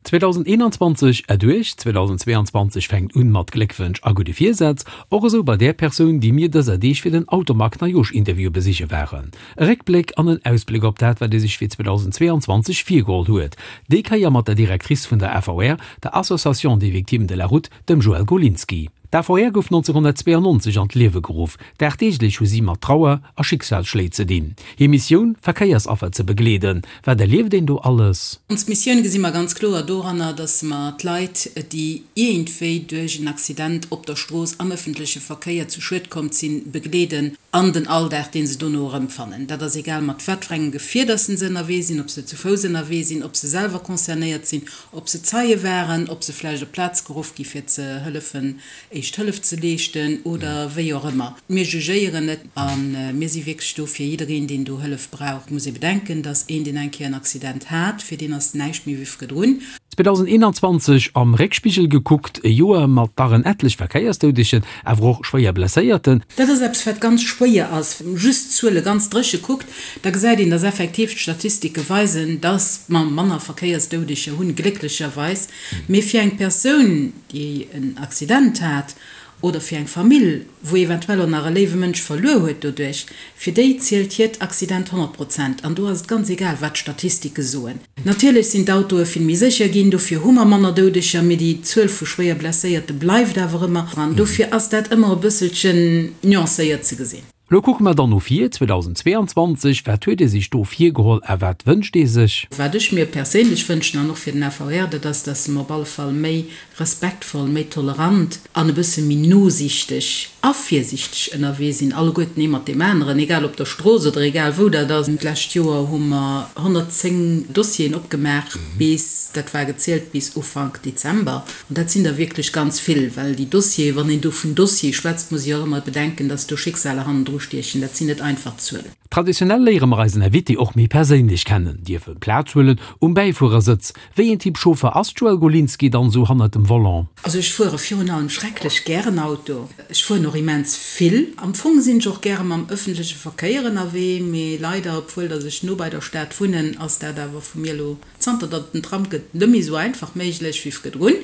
2021 erduerch, 2022 fänkt un mat Gléckwënsch a gudde Virsätz, och esou bei där Persoun, déi mir dëser Deeg fir den Automag Neijoerschinterview besiche waren. E Réckbléck an en Ausbléck op dat, wat ee sech fir 2022 virgeholl huet, déi Kéier mat der Directrice vun der AVR, der Association des Victimes de la Route, dem Joëlle Golinski. D'AVR gouf 1992 an d'Liewe geruff. Dagdeeglech hu si mat Trauer a Schicksalsschléi ze dinn. Hir Missioun, Verkéiersaffer ze begleeden. Wat erlieft een do alles? Ons Missioun gesi mer ganz kloer doranner, dass mer d'Leit, déi iergendwéi duerch en Accident op der Strooss, am ëffentleche Verkéier zu Schued komm sinn, begleeden an den Alldag, dee se dono erëmfannen. Dat ass egal mat wat fir engem Gefier dass se ënnerwee sinn, ob se zu Fouss ënnerwee sinn, ob se selwer concernéiert sinn, ob se Zeie waren, ob se vläicht op d'Plaz geruff gi fir ze hëllefen éischt Hëllef ze leeschten oder wéi och ëmmer. Mir jugéieren net a mir si wierklech do fir jiddereen, deen do Hëllef brauch. Et muss ee bedenken, dass een, deen eng Kéier en Accident hat, fir deen ass näischt méi wéi virdrun. 2021 am Réckspigel gekuckt, e Joer mat dach en ettlech Verkéiersdoudegen, awer och schwéier Blesséierten. Dat ass eppes, wat ganz schwéier ass. Wann ee just d'Zuele ganz dréche kuckt, da gesäit een, dass effektiv d'Statistike weisen, dass mer manner Verkéiersdoudeger hunn, glécklecherweis. Mee fir eng Persoun, déi en Accident hat, oder fir eng Famill, wou eventuell och nach e léiwe Mënsch verluer huet doduerch, fir déi zielt hiert Accident 100 Prozent. An do ass et ganz egal, wat d'Statistike soen. Natierlech sinn d'Autoe vill méi sécher ginn, dofir hu mer manner Doudeger, mee déi Zuel vu schwéier Blesséierte bleift awer ëmmer. An dofir ass dat ëmmer e bësselchen nuancéiert ze gesinn. Lo kucke mer dann no vir, 2022, wat huet ee sech do virgeholl a wat wënscht ee sech? Wat ech mir perséinlech wënschen an och fir den AVR, dat ass, dass mer op alle Fall méi respektvoll, méi tolerant an e bësse méi nosiichteg a virsiichteg ënnerwee sinn, alleguerten ee mat deem aneren, egal op der Strooss oder egal wou dat ass. D'lescht Joer hu mer 110 Dossieren opgemaach bis, dat war gezielt bis Ufank Dezember. An dat sinn der wierklech ganz vill, well déi Dossiere, wann een do vun Dossier schwätzt, muss ee jo och ëmmer bedenken, dass do Schicksaler hannendru stiechen. Dat sinn net einfach Zuelen. Traditionell léiere mer eisen Invité och méi perséinlech kennen, dierfe Plaz huelen um Bäifuerersëtz. Wéi een Typ Chauffer ass d'Joëlle Golinski dann esou hannert dem Volant? Also ech fuere virun allem schrecklech gären Auto. Ech fueren och immens vill. Am Fong sinn ech och gäre mam ëffentleche Verkéier ënnerwee, mee leider, obwuel dass ech no bei der Stad wunnen, ass dat awer vu mir elo Zanter datt et den Tram gëtt, net méi esou einfach méiglech wéi virdrun.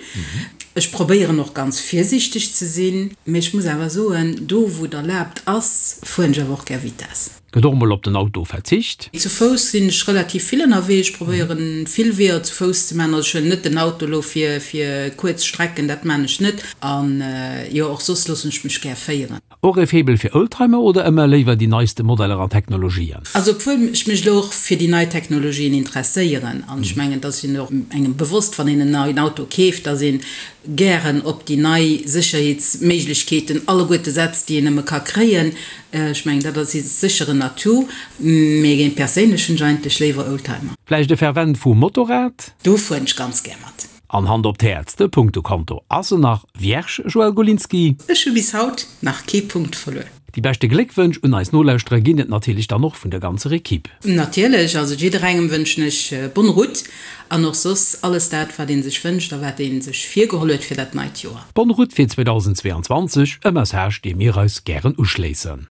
Ech probéieren och ganz virsiichteg ze sinn, mee ech muss awer soen, do wou et erlaabt ass, fueren ech awer och gär Vitess. Gëtt och mol op den Auto verzicht? Zu Fouss sinn ech relativ vill ënnerwee. Ech probéieren vill Weeër zu Fouss ze maachen. Also ech huelen net den Auto elo fir fir kuerz Strecken, dat maan ech net. An jo, och soss loossen ech mech gär féieren. Och e Faible fir Oldtimer oder ëmmer léiwer déi neiste Modeller an Technologien? Also obwuel ech mech elo och fir déi nei Technologien interesséieren, an ech mengen et ass jo och engem bewosst wann een en neien Auto keeft, dass een gären op déi nei Sécherheetsméiglechkeeten alleguerte setzt déi een nëmme ka kréien, ech mengen dat ass sécher en Atout, mee géint perséinlech hunn ech eigentlech léiwer Oldtimer. Vläicht e Fervent vum Motorrad? Do fueren ech ganz gär mat. An Hand op d'Häerz, de Punktekonto ass en nach vierge, Joël Golinski? Ech hu bis haut nach kee Punkt verluer. Déi beschte Gléckwënsch un eis Nolauschterer ginn et natierlech dann och vun der ganzer Equipe. Natierlech, also jidderengem wënschen ech bonne route an och soss alles dat wat een sech wënscht a wat een sech virgeholl huet fir dat neit Joer. Bonne route fir 2022, e Message dee mir eis gären uschléissen.